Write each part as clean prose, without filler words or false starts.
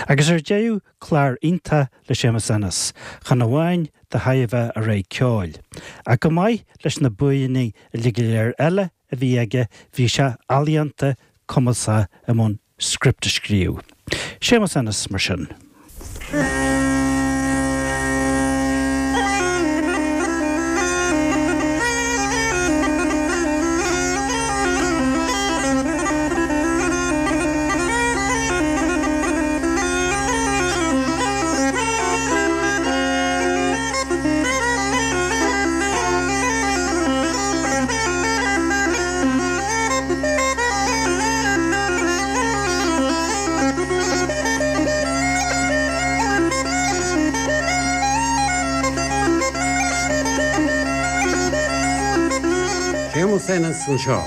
Agus ar deireadh, clár iontach le Séamus Ennis, chan amháin de thairbhe a rogha ceoil, ach chomh maith leis na buanna uilig go léir eile a bhí aige, bhí sé ealaíonta, cumasach i mbun script a scríobh. Séamus Ennis, mar sin. Séamus Ennis anseo.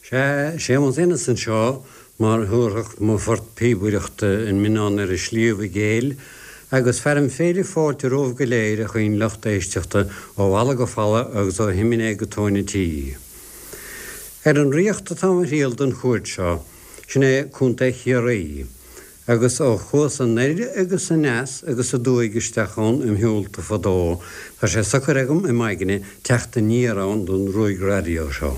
Sea, Séamus Ennis anseo, mar a thabharfadh mo phort píobaireachta an Mionnán ar an Sliabh i gCéill, agus fearaim féile fáilte romhaibh go léir, a chaoin lucht éisteachta, ó bhalla go falla agus ó shiminé go tóin an tí. Ar an Ríocht atá mo thriall don chuairt seo, sin é Contae Chiarraí, agus ó chuas anoir agus aneas agus aduaidh isteach ann im shiúlta fadó, tá sé socair agam i m'aigne teacht aniar ann don ruaig raidió seo.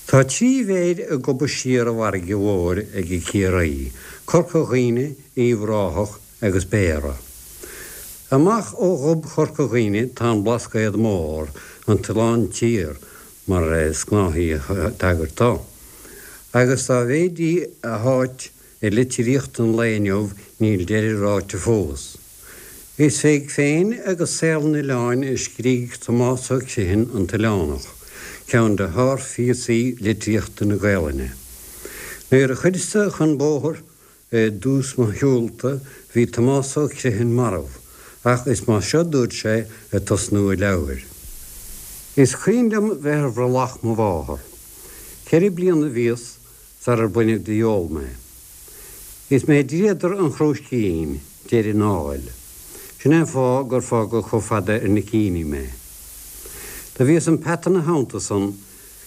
Tá trí mhéir ag gobadh siar an bhfarraige mhóir ag Ciarraí, Corca Dhuibhne, Uíbh Ráthach agus Béarra. Amach ó ghob Chorca Dhuibhne tá an Blascaod Mór, an tOileán Tiar, mar is gnáthaí tagairt dó. Agus dá mhéid í a háit i litríocht an lae inniu níl deireadh ráite fós. Is fé féin agus saol an oileáin a scrígh Tomás Ó Criomhthain An tOileánach, ceann de shárphíosaí litríochta na Gaelainne. Nuair a chuireas-sa chun bóthair I dtús mo shiúlta bhí Tomás Ó Criomhthain marbh, ach is mar seo dúirt sé ag tosnú a leabhair. Is cuimhin liom bheith ar bhrollach mo mháthar. Ceithre bliana a bhíos sarar baineadh de fheoil mé. Is mé dríodar an chrúiscín, deiridh an áil. Sin é an fáth gur fágadh chomh fada ar na cíní mé. Do bhíos im pheata 'na theannta san,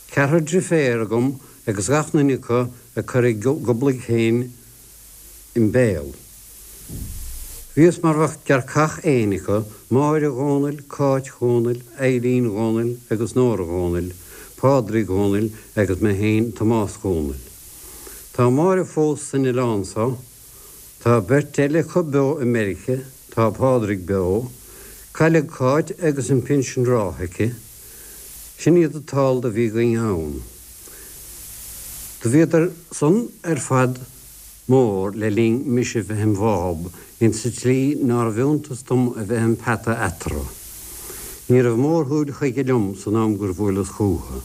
ceathrar driféar agam agus gach nduine acu ag cur a goblaigh féin im béal. Bhíos mar bheadh gearrcach éin acu, Máire Dhónaill, Cáit Dhónaill, Eilín Dhónaill agus Nóra Dhónaill, Pádraig Dhónaill agus mé féin Tomás Dhónaill. Tá Máire fós san oileán so. Tá beirt eile acu beo i Meirice, tá Pádraig beo. Cailleadh Cáit agus an pinsean rátha aici. Sin iad an t-ál do bhí againn ann. Do bhíodar san ar fad mór le linn mise bheith im bháb, insa tslí nárbh iontas dom a bheith im pheata eatarthu. Ní raibh mórshúil chuige liom san am gur bhuaileas chúthu.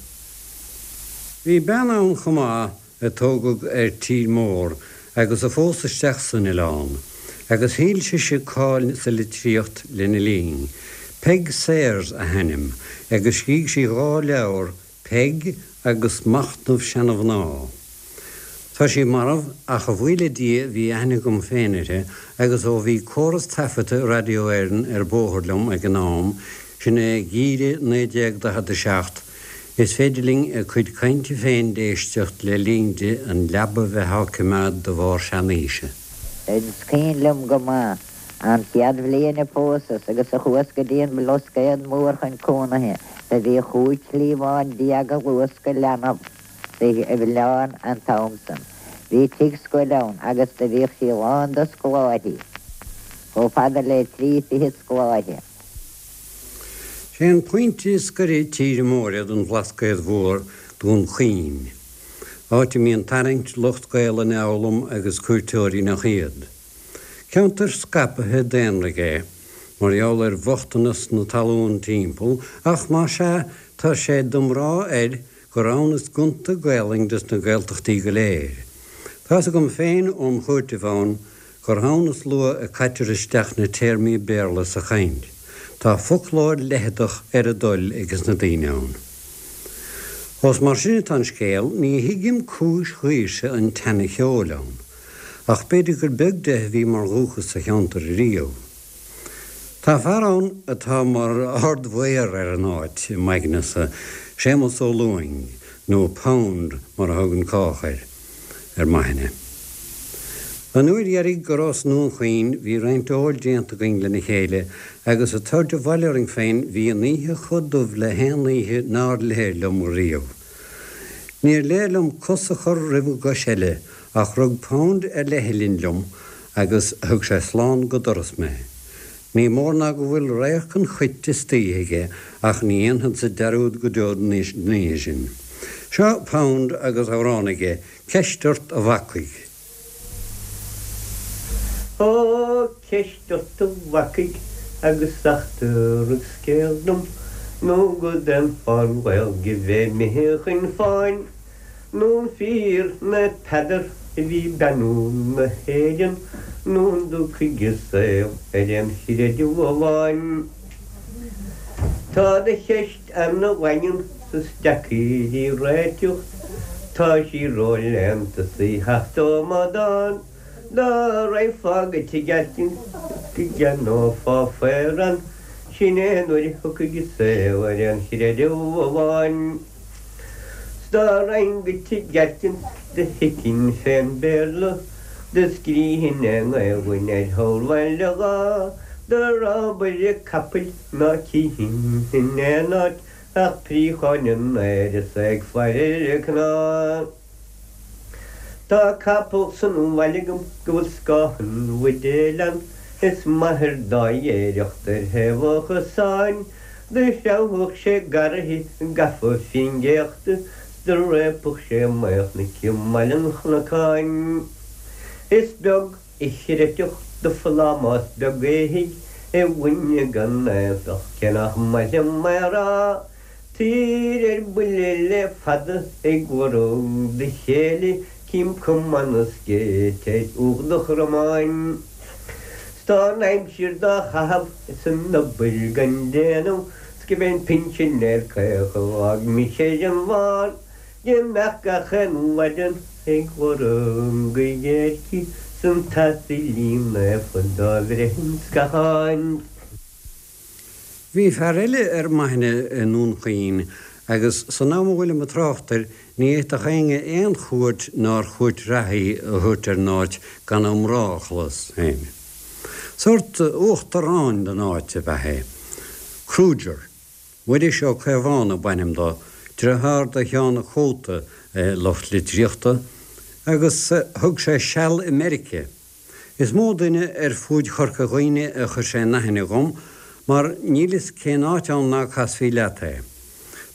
Bhí bean ann chomh maith a tógadh ar tír mór agus a phós isteach san oileán, agus thuill sise cáil sa litríocht lena linn. Peig Sayers a hainm, agus scrígh sí dhá leabhar, Peig agus Machnamh Seana-Mhná. Tá sí marbh, ach a bhuí le Dia bhí aithne agam féin uirthi, agus ó bhí córas taifeadta Radio Éireann ar bóthar liom ag an am, sin é geimhreadh 1947, Is féidir linn a cuid cainte féin d'éisteacht le linn di an leaba bheith á coimeád de bharr seanaoise. Is cuimhin liom go maith an chéad bhliain a phósas agus a chuas go dtí an Blascaod Mór chun cónaithe. Do bhí chúig chliabhán déag a luascadh leanbh sa oileán an t-am san. Bhí tigh scoile ann agus do bhíodh sí lán de scoláirí, chomh fada le trí fichid scoláire. Sé an pointe is gaire tíre móire don Bhlascaod Mhór Dún Chaoin, áit a mbíonn tarraingt lucht Gaelainne a fhoghlaim agus cuairteoirí nach iad. Ceantar scaipthe daonraidh é, mar gheall ar bhochtanas na talún timpeall, ach más ea, tá sé d'iomrá air gur ann is gonta Gaelainn des na Gaeltachtaí go léir. Tá's agam féin óm chuairteamh ann gur ann is luath a caitear isteach na téarmaí Béarla sa chaint. Tá foclóir leitheadach ar a dtoil ages na daoine ann. Ós mar sin atá an scéal, ní thuigim cúis dhaoirse an teanna cheoil ann. Ach b'fhéidir gur beag de a bhí mar dhúchas sa cheantar ariamh. Tá fear ann atá mar ard-mhaor ar an áit, i m'aignese, Séamus Ó Lúing, nó Pound mar a thugann cách air, ar m'aithne. An uair dheiridh go rabhas i nDún Chaoin bhí roinnt óil déanta againn lena chéile agus ag tabhairt abhaile orainn féin bhí an oíche chomh dubh le haon oíche nár léir liom riamh. Níor léir liom cos a chur roimh an gcois eile ach rug Pound ar leithghlinn liom agus thug sé slán go doras mé. Ní mór ná go bhfuil radharc an chait istoíche aige ach ní dhéanfadsa dearúd go deo den oíche sin. Seo Pound agus amhrán aige, Ceist ort a bhacaigh. Ó, ceist ort a bhacaigh agus eachtraigh scéal dom nó go d'aon fán Ghaeilge bheith imithe chun fáin. Nó an fíor Naomh Peadar a bhí ag beannú na hÉireann nó an dtiocfaidh an saol ar aon chreideamh amháin? Tá do cheist ana-dhaingean 's is deacair í réiteacht, tá sí ró-léannta 's í theacht ó amadán. Dá raghfá go tigh Atkins is go gceannófá faor ann, sin é nuair a thiocfaidh an saol ar aon chreideamh amháin. 'S dá raghainn go tigh Atkins do thuigfinn fén Béarla do scrífinn i nGaelainn ar shamhail a dhá do rábaire capaill ná cífinn in aon áit ach préacháin in aer is é ag faire ar a cnámh. Tá capall san bhaile agam go bhfuil scáth an bhuidéil ann is m'athair dá ghéireacht ar thaobh an chosáin Do threabhfadh sé garraithe gafa fén gcéachta 's do réabfadh sé maolchnoic i mBaile an Chnocáin. Is beag a chreidfeadh do phlámás beag éithigh i dhuine gan éifeacht cé nach maith liom é a rá. Tír ar buile le fada ag lorg do chéile cím cuma na scéite ar ucht do chromáin. 'S tá an aimsir dá chaitheamh is an obair gan déanamh 's go b'é an pinsinéir caoch a d'fhág mise ar an bhfán Dá mbeadh gach aon mhaidean ag lorg a dhéirce 's an t-asailín naofa dá bhreith an scatháin. Bhí fear eile ar m'aithne i nDún Chaoin agus san am a bhfuilim ag trácht air ní fhéadfadh éinne aon chuairt nár chuairt reatha í a thabhairt ar an áit gan a iomrá a chlos féin. Sórt uachtaráin den áit ab ea é. Kruger. Muiris Ó Caomhánaigh ab ainm dó, driotháir do Sheán a' Chóta lucht litríochta, agus thug sé seal i Meirice. Is mó duine ar fuaid Chorca Dhuibhne a chuir sé in aithne dhom, mar níl fhios cén áit ann ná casfaí leat é.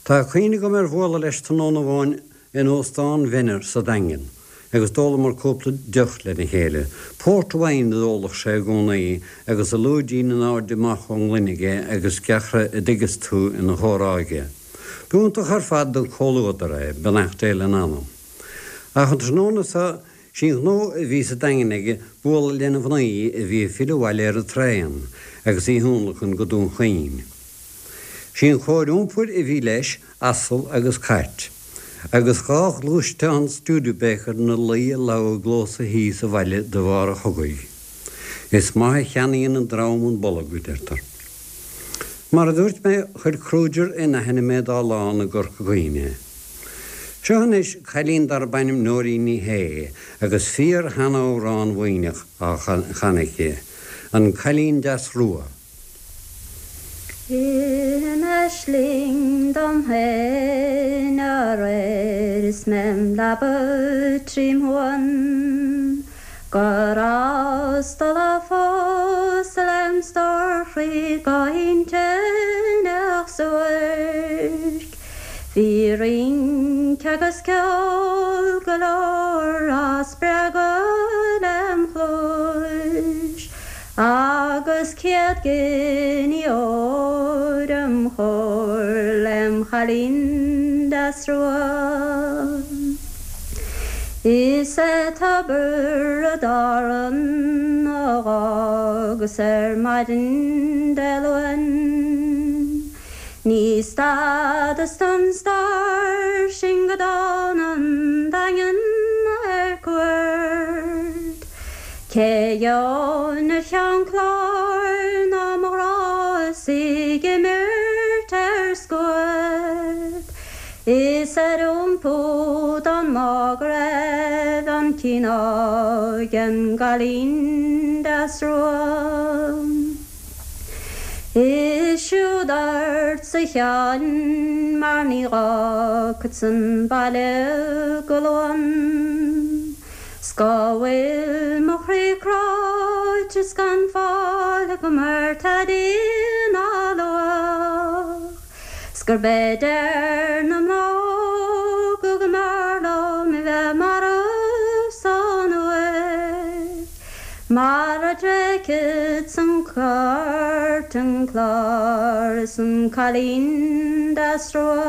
Tá cuimhne agam ar bhualadh leis tráthnóna amháin in Óstán Mhenner sa Daingean, agus d'ólamar cúpla deoch lena chéile. Port wine a d'óladh sé i gcónaí, agus a lúidín in airde amach ón ngloine aige agus gearrtha a dtuigeas tú ina chomhrá aige. B'iontach ar fad don chomhluadar é, beannacht Dé lena anam. Ach an tráthnóna so, Sí an gnó a bhí sa Daingean aige bualadh lena mhnaoi a bhí ag filleadh abhaile ar an traen agus í thionlacan go Dún Chaoin. Sí an chóir iompair a bhí leis, asal agus cairt. Agus dha ghluaisteán Studebaker 'na luí i lamha i gclós a thí sa bhaile de bharr an chogaidh. Is maith a cheannaíonn an drom an bolg, a deirtear. Mar a dúirt mé, chuir Kruger in aithne mé dá lán i gCorca Dhuibhne. Seo anois cailín darb ainm Nóirín Ní Shé agus fíor-sheanamhrán Mhuimhneach á chanadh aici, An Cailín Deas Rua. I m'aisling dom féin aréir is mé im leaba trím shuan Go rabhas dul a phósadh lem stór chroí go hintinneach suairc. Bhí rince agus ceol go leor á spreagadh lem chluais agus 100 giní óir im chomhair lem chailín deas rua. Is é Tiobraid Árann a dh'fhágas ar maidin Dé Luain. Ní stadas don stair sin go dtána an Daingean ar cuairt. gheobhainn ar cheann cláir ná mo ghrá is í ag imirt ar scuad is ar iompú don mbá go raibh an cineál den gcailín deas rua. Is siúd ort a Sheáin mar ní dh'fhágfadsa an baile go Luan. 'S go bhfuil mo chroí cráite 's gan fáil agam ar tada ná luach 's gurb é deir na mná go go mb'fhearr liom a bheith marbh san uaigh mar a dtréigfeadsa an cairt an clár is an cailín deas rua.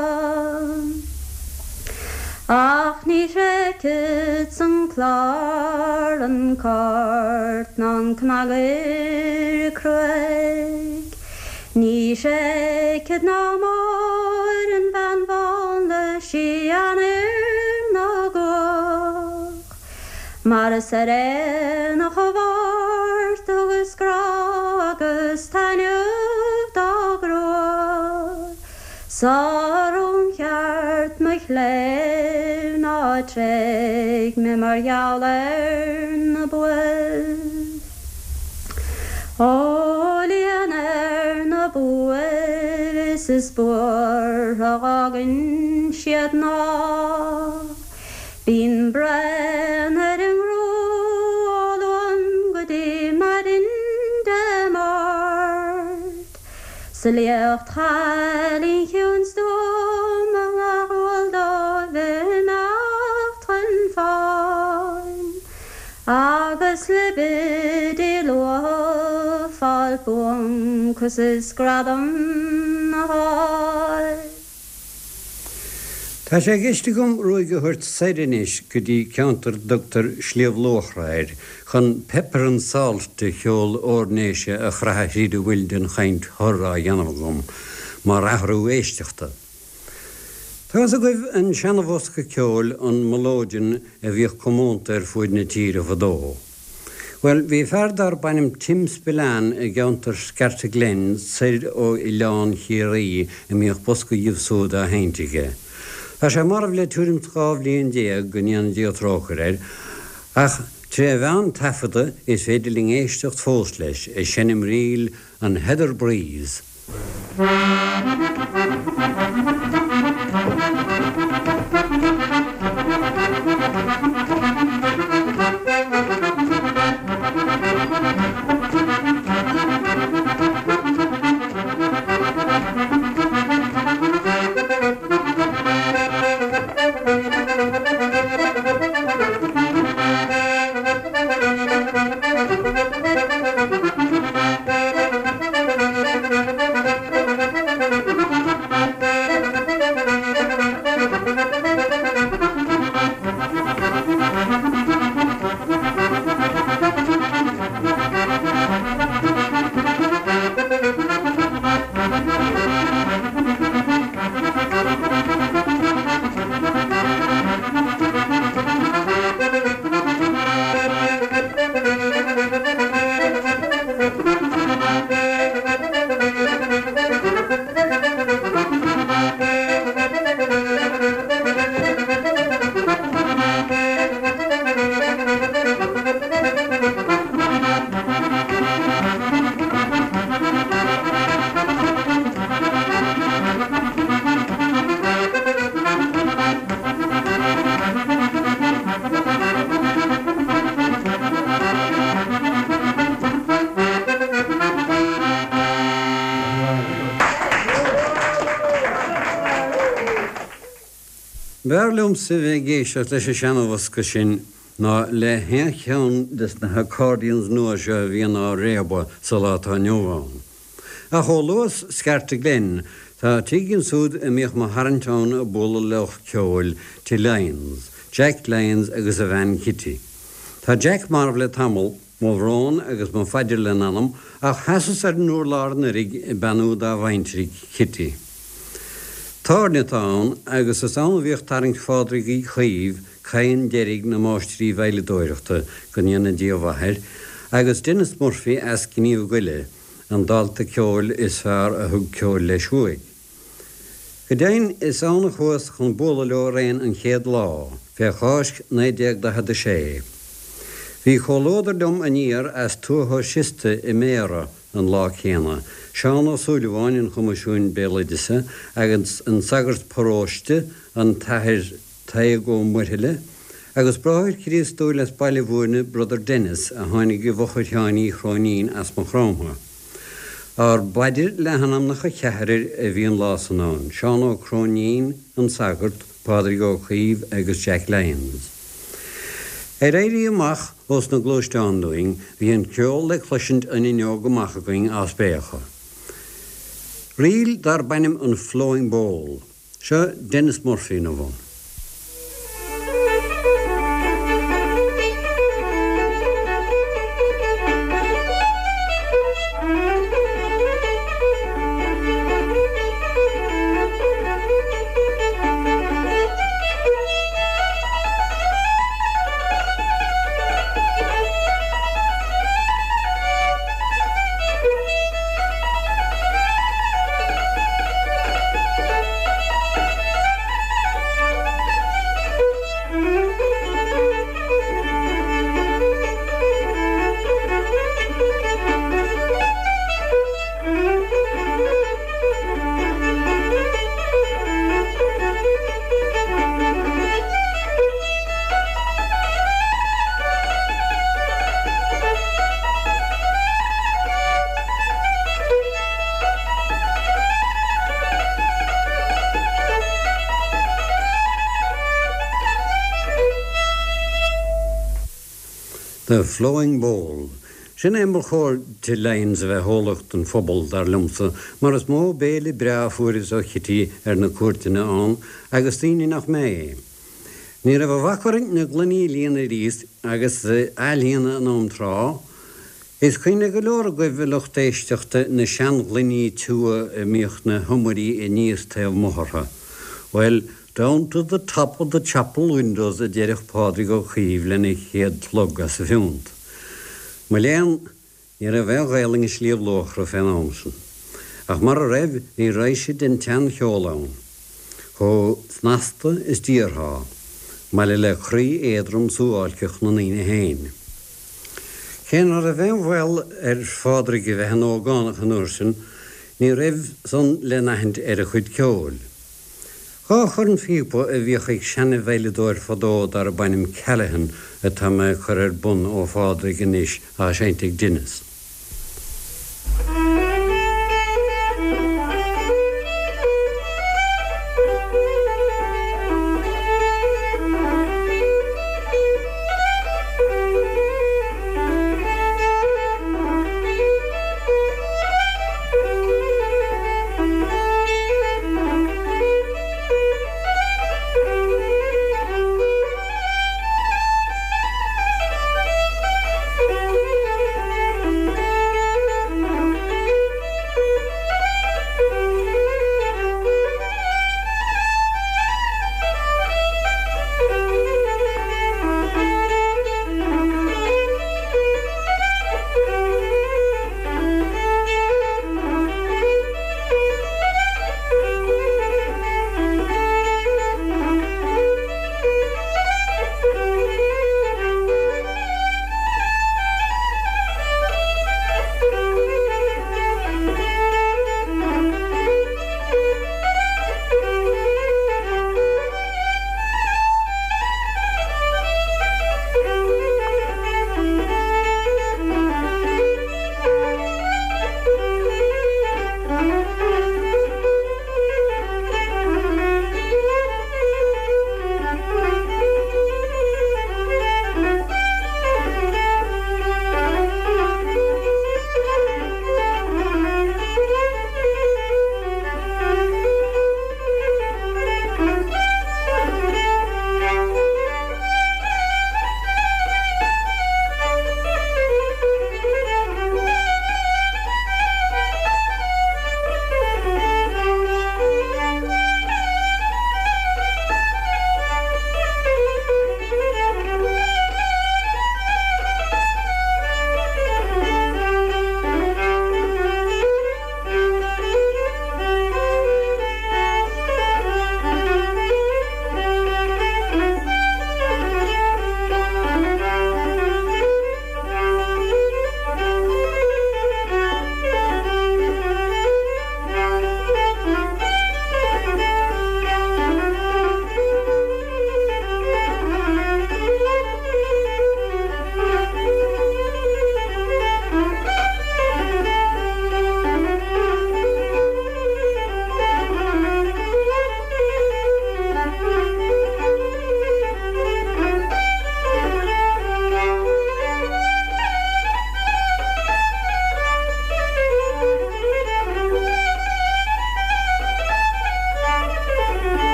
Ach ní thréigfeadsa an clár, an cairt ná an cnagaire cruaidh. Ní thréigfead ná Máire an bhean bhán le síon fhir na gcuach. Mar is ar aonach a Mháirt thugas grá agus taitneamh dá grua. Sar ón cheart mo chléibh ná tréig mé mar gheall ar na buaibh. Ó líon ar na buaibh is is buartha dh'fhágainn siad ná bíonn braon ar a ngrua ó Luan go dtí maidin Dé Máirt. 'S a liacht chailín chiúin stuama nach eol dóibh imeacht chun fáin agus libidí luath fáil buancas is gradam a fháil. Tá sé i gceist agam ruaig a thabhairt soir anois go dtí ceantar a dtugtar Sliabh Luachra air chun pepper and salt de cheol Oirnéise a chroitheadh thríd a bhfuil den chaint thur á dhéanamh agam, mar athrú éisteachta. Tá fhios agaibh an seana-bhosca ceoil, an melodeon, a bhíodh comónta ar fuaid na tíre fadó. Bhuel, bhí fear darb ainm Tim Spillane i gceantar Scartaglen soir ó Oileán Chiarraí a mbíodh bosca dhíobh súd á sheinnt aige. Tá sé marbh le tuairim 's 12 bhliain, go ndéana Dia trócaire air, ach tré mheán taifeadta is féidir linn éisteacht fós leis ag seinm ríl an Heather Breeze. B'fhearr liomsa bheith ag éisteacht leis an seana-bhosca sin ná le haon cheann des na haccordions nua seo a bhíonn á réabadh sa lá atá inniu ann. Ach ó luas Scartaglen, tá tigh ansúd a mbíodh mo tharraingt ann ag bualadh le lucht ceoil, Tigh Lyons, Jack Lyons agus a bhean Kitty. Tá Jack marbh le tamall, mo bhrón agus mo phaidir lena anam, ach sheasas ar an urlár anuiridh ag beannú dá bhaintrigh, Kitty. Tábhairne atá ann agus is ann a bhíodh tarraingt Phádraig Uí Chaoimh, cadhan deiridh na máistrí veidhleadóireachta, go ndéana Dia a mhaith air. agus Denis Murphy as Gníomh Goile, an dalta ceoil is fearr a thug ceol leis uaidh. Go deimhin, is ann a chuas chun bualadh leo araon an chéad lá, fé Cháisc 1946. Bhí comhluadar liom aniar as Tuath Ó Siosta i mBéarra an lá céanna, Seán Ó Súilleabháin an Choimisiúin Béaloideasa agus an sagart paróiste, an tAthair Tadhg Ó Muirthile, agus bráthair Críostúil as Baile Bhúirne, Brother Denis, a tháinig i bhfochair Sheáin Uí Chróinín as Maigh Chromtha. Ár bpaidir le hanamnacha cheathrair a bhí an lá san ann, Seán Ó Cróinín, an sagart, Pádraig Ó Caoimh agus Jack Lyons. Ar éirí amach ós na gluaisteáin dúinn, bhí an ceol le cloisint an fhuinneog amach againn á spréachadh. Ríl darb ainm an Flowing Bowl. Seo Denis Murphy ina bhun. The Flowing Bowl. Sin é mar chóir do Lyons a bheith eolach don phobal, dar liomsa, mar is mó béile breá a fuaireas ó Chití ar na cuairteanna ann, agus daoine nach mé. Ní raibh a bhac orainn na gloiní a líonadh arís agus a athlíonadh in am tráth, Is cuimhin le go leor agaibh, a lucht éisteachta, na seanghloiní tiubha a mbíodh na hiomairí aníos taobh amuigh orthu. Bhuel, down to the top of the chapel windows a deireadh Pádraig Ó Caoimh lena chéad shlog as a phiúnt. Mo léan, ní raibh aon Ghaelainn i Sliabh Luachra fén am san. Ach mara raibh, bhí raidhse den tseancheol ann. Chomh snasta is d'iarrfá, maille le croí éadrom suáilceach na ndaoine féin. Cé ná raibh aon bhaol ar Phádraig a bheith ina ógánach an uair sin, ní raibh san le n-aithint ar a chuid ceoil. Dha chornphíopa a bhíodh ag seana-veidhleadóir fadó darb ainm Callaghan atá mé ag cur ar bun ó Phádraig anois á seinnt ag Denis.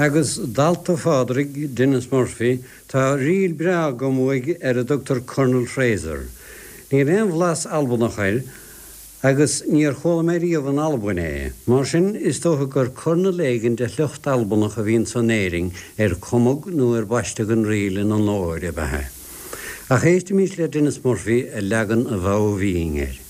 Agus dalta Phádraig, Denis Murphy, tá ríl breá agam uaidh ar a dtugtar Colonel Fraser. Níl aon bhlas Albanach air agus níor chuala mé riamh in Albain é. Mar sin, is dócha gur Colonel éigin de shliocht Albanach a bhí anso in Éirinn ar cumadh nó ar baisteadh an ríl ina onóir ab ea é. Ach éistimis le Denis Murphy ag leagan an Mhodha Bhinn air.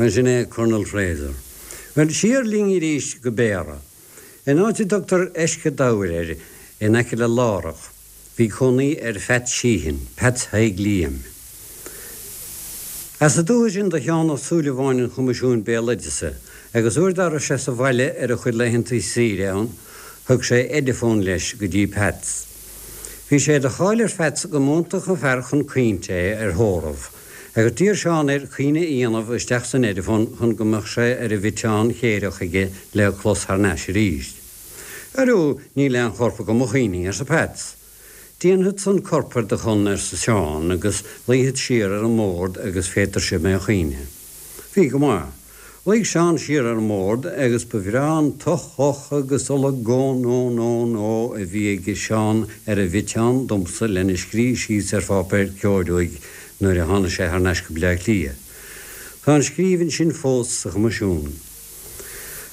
Bhuel, sin é Colonel Fraser. Bhuel, siar linn arís go Béarra. In áit a dtugtar Eisce Dobhair air, in aice le Lárach, bhí cónaí ar Pheait Sheehan, Peats Thaidhg Liam. As an dúiche sin do Sheán Ó Súilleabháin an Choimisiúin Béaloideasa, agus uair dá raibh sé sa bhaile ar a chuid laethanta saoire ann, thug sé Ediphone leis go dtí Peats. Bhí sé de cháil ar Pheats go mb'iontach an fear chun caointe é ar thórramh, agus d'iarr Seán air caoineadh a dhéanamh isteach san Ediphone chun go mbeadh sé ar an bhfiteán chéireach aige le clos thar n-ais arís. Airiú, níl aon chorp agam a chaoinfidh, arsa Peats. Déanfadsa an corp ar do shon, arsa Seán, agus luífead siar ar an mbord agus féadfairse mé a chaoineadh. Bhí go maith. Luigh Seán siar ar an mbord agus ba bhreá an toch-och agus olagón ó-nó-nó a bhí ag Seán ar an bhfiteán domsa lena scrí síos ar pháipéar ceoil uaidh nuair a tháinig sé thar n-ais go Bleá Cliath. Tá an scríbhinn sin fós sa Choimisiún.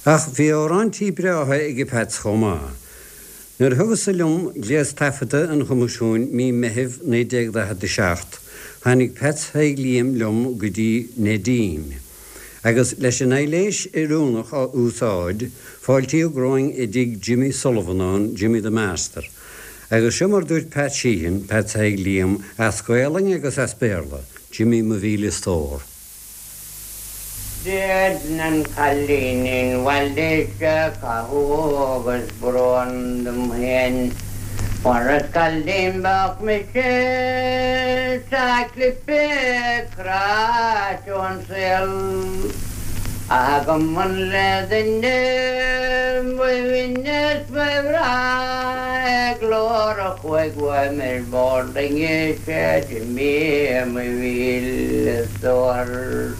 Ach bhí amhráintí breátha ag Peats chomh maith. Nuair a thugas-sa liom gléas taifeadta an Choimisiúin mí Meithimh 1947, tháinig Peats Thaidhg Liam liom go dtí Neidín, agus leis an aidhléis oiriúnach a úsáid, fáiltíodh romhainn i dtigh Jimmy Sullivan ann, Jimmy the Master. Agus seo mar dúirt Pat Sheehan, Peats Thaidhg Liam, as Gaolainn agus as Béarla, Jimmy mo mhíle stór. Déanann an cailínín bhaile seo cathú agus brón dom féin mar is cailín beag mise 's a clipeadh cráite ón saol ach agam an le duine ba bhinne 's ba bhreá é glór a chuaigh uaim ar bord loinge 'sé Jimí mo mhíle stór.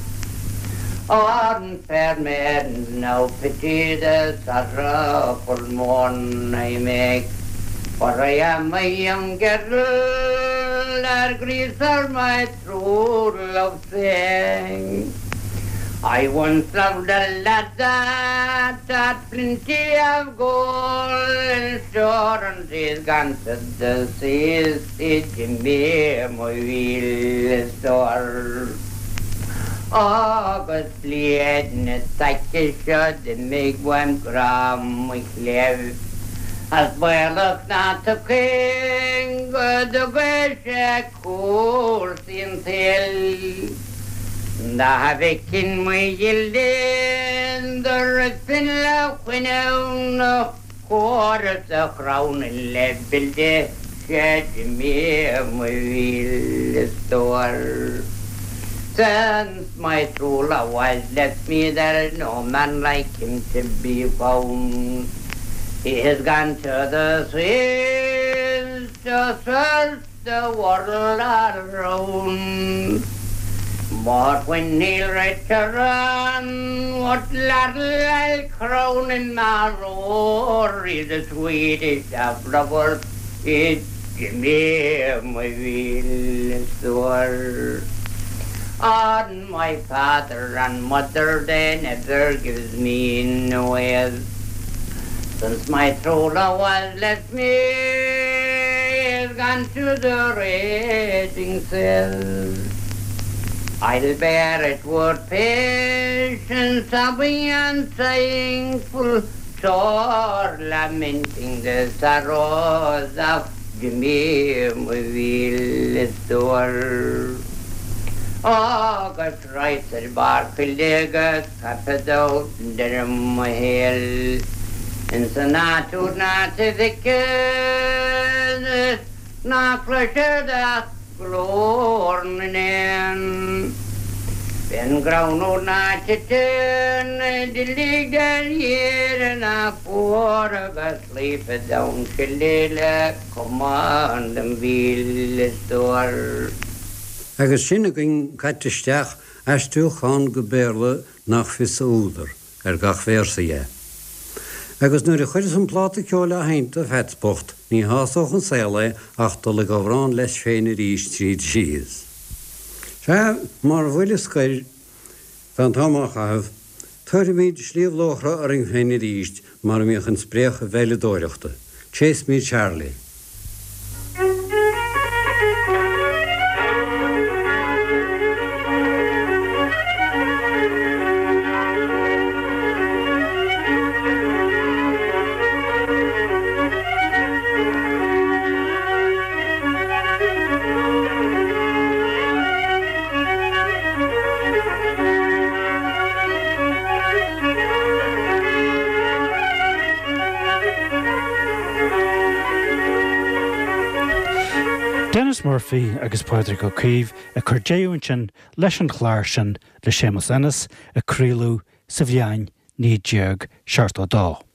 On fair maidens now pity the sorrowful moan I make, For I am a young girl that grieves for my true love's sake. I once loved a lad that had plenty of gold in store and he's gone to the seas, 'sé Jimí mo mhíle stór. Agus bliain na s'aici seo d'imigh uaim grá mo chléibh, As baolach ná tiocfainn go dtuga sé cúrsaí an tsaoil. Dá bhfeicfinn mo ghile do rithfinn le fuinneamh na. chóir is a chrann le buille 'sea Jimí mo mhíle stór. Since my true love has left me there is no man like him to be found. He has gone to the seas to search the world around. But when he'll return, what ladle I'll crown him my Rory, the sweetest of lovers, is Jimí mo mhíle stór. On my father and mother they never gives me no aise. Since my true love has left me, he's gone to the raging seas. I'll bear it with patience, sobbing and sighing full sore, lamenting the sorrows of Jimí mo mhíle stór. Agus raghadsa ar barr coille agus caithfead deireadh mo shaoil ins an áit úd ná feicfead ná cloisfead ach glór na n-éan. Fén gcrann úd ná titeann duilleog de shíor ná fuar agus luífead ann le camán dem mhíle stór. Agus sin againn caite isteach aistriúchán go Béarla nach fios a údar, ar gach véarsa dhe. Agus nuair a chuireas an pláta ceoil á sheinnt do Pheats bocht, ní shásódh an saol é ach dul ag amhrán leis féin arís tríd síos. Sea, mar bhuille scoir, tá an t-am á chaitheamh, tabharfaimid Sliabh Luachra orainn féin arís mar a mbíodh an spréach veidhleadóireachta. Chase Me Charlie. Denis Murphy agus Pádraig Ó Caoimh ag cur deireadh ansin leis an chlár sin le Séamus Ennis a craoladh sa bhliain 1972.